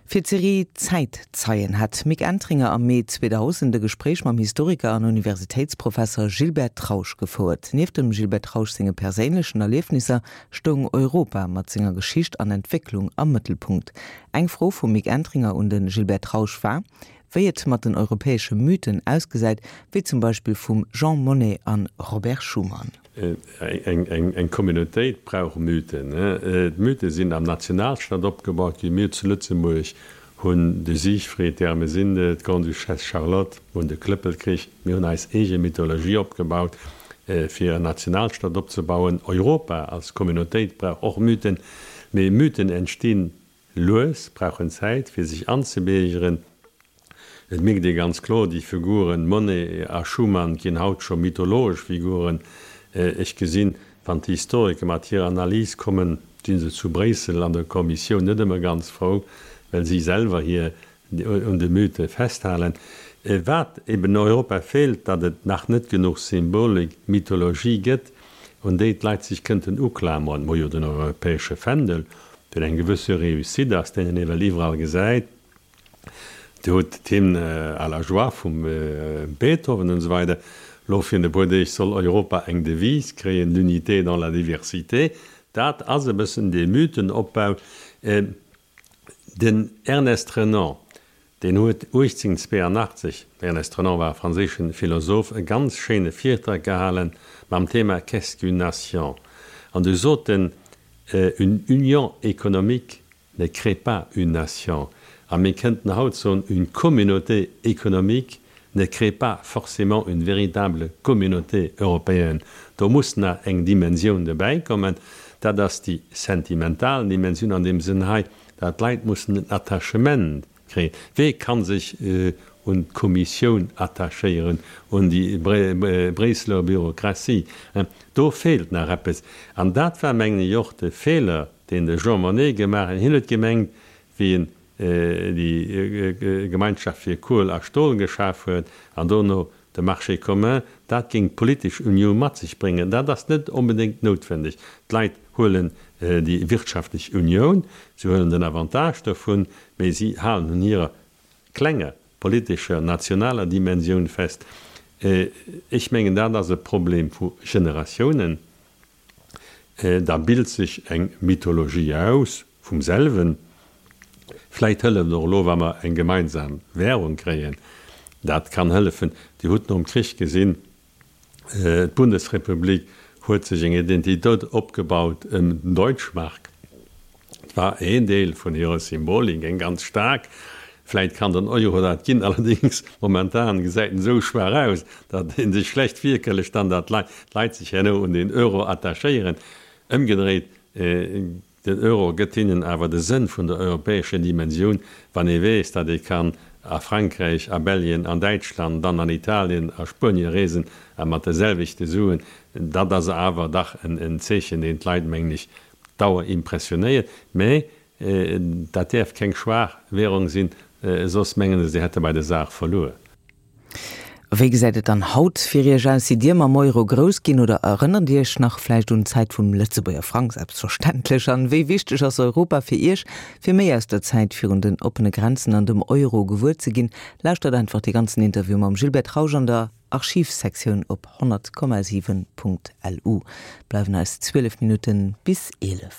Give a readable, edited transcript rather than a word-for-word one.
Fir d'Serie Zäitzeien hat d'Mick Entringer am Mee 2000 e Gespréich mam Historiker an Universitéitsprofesser Gilbert Trausch gefouert. Nieft dem Gilbert Trausch senge perséinlechen Erliefnisser stoung Europa mat senger Geschicht an Entwécklung am Mëttelpunkt. Eng Fro vum Mick Entringer un de Gilbert Trausch war, wéi et mat den europäesche Mythen ausgesäit, wéi zum Beispill vum Jean Monnet an Robert Schuman. Eng Communautéit brauch Mythen. D'Mythe sinn am Nationalstaat opgebaut ginn. Mir zu Lëtzebuerg hunn de Siegfried, d'Ermesinde, d'Grande-Duchesse Charlotte, mir hunn de Klëppelkrich. Mir hunn eis eege Mythologie opgebaut, fir en Nationalstaat opzebauen. Europa als Communautéit brauch och Mythen. Mee Mythen entstinn Lues, brauchen Zäit fir sech anzebiergeren. Et mierkt ee ganz kloer, déi Figuren Monnet a Schuman ginn haut scho mythologesch Figuren. Ech gesinn, wann d'Historiker mat hirer Analys kommen, si se zu Bréissel an der Kommissioun net ëmmer ganz frou, well si selwer hir un de Mythe festhalen. Wat eben Europa feelt, datt et nach net genuch Symbolik, Mythologie gëtt, un déi d'Leit sech kënnten uklameren. Mer hu jo den europäesche Fändel, deen eng gewësse Réussite ass, deen een ewell iwwerall gesäit. Dir hutt d'Hymne à la joie vum Beethoven an esou weider. Elo virun e puer Deeg soll Europa eng Devise kréien, L'unité dans la diversité. Dat ass e bëssen dee Mythenopbau. Den Ernest Renan, deen huet 1882, Ernest Renan war e franséische Philosoph, e ganz schéine Virtrag gehale mam Thema Qu'est-ce qu'une nation? An du sot en, Une union économique ne crée pas une nation. A mir kënnten haut soen, Une communauté économique ne crée pas forcément une véritable communauté européenne. Do muss nach eng Dimensioun dobäi kommen, dat ass déi sentimental Dimensioun an deem Sënn hei, dat d'Leit mussen en Attachement kréien. Wee ka sech un d'Kommissioun attachéieren, un déi Bréisseler Bürokratie? Do feelt nach eppes. An dat war, mengen ech, och de Feeler, deen de Jean Monnet gemaach huet. Hien huet gemengt, wéi en déi Gemeinschaft fir Kuel a Stol geschaf huet an dono de Marché commun, dat géing d'politesch Unioun mat sech bréngen. Dat ass net onbedéngt noutwendeg. D'Leit huelen déi wirtschaftlech Unioun, se huelen den Avantage dovun, mee si halen un hirer klenger politescher, nationaler Dimensioun fest. Ech mengen, dat ass e Problem vu Generatiounen. Da bilt sech eng Mythologie aus vum selwen. Vläit hëlleft och elo, wa mer eng gemeinsam Währung kréien. Dat kann hëllefen. Dir hutt nom Krich gesinn, d'Bundesrepublik huet sech eng Identitéit opgebaut ëm den Deutschmark. Et war een Deel vun hirer Symbolik, eng ganz staark. Vläit kann den Euro dat ginn, allerdéngs momentan gesäit en esou schwaach aus, datt ee sech schlecht virkëlleg dann, datt d'Leit sech herno un den Euro attachéieren. Ëmgedréit, den Euro gëtt hinnen awer de Sënn vun der europäescher Dimensioun, wann ee weess, datt ee kann a Frankräich, a Belgien, an Däitschland, dann an Italien, a Spuenie reesen a mat de selwechte Suen. Dat ass awer dach en Zeechen, deen d'Leit, mengen ech, Dauer impressionéiert, mä dat däerf keng schwaach Währung sinn, soss mengen se, se hätte bei der Saach verluer. Wéi gesäit et dann haut fir Iech aus? Sidd Dir mam Euro grouss ginn oder erënnert Dir Iech nach vläicht un d'Zäit vum Lëtzebuerger Frang? Selbstverständlech. An wéi wichteg ass Europa fir Iech? Fir méi aus der Zäit virun den oppene Grenzen an dem Euro gewuer ze ginn, lauschtert einfach dee ganzen Interview mam Gilbert Trausch an der Archivsektioun op 100,7.lu. Bleiwen eis 12 Minutten bis 11.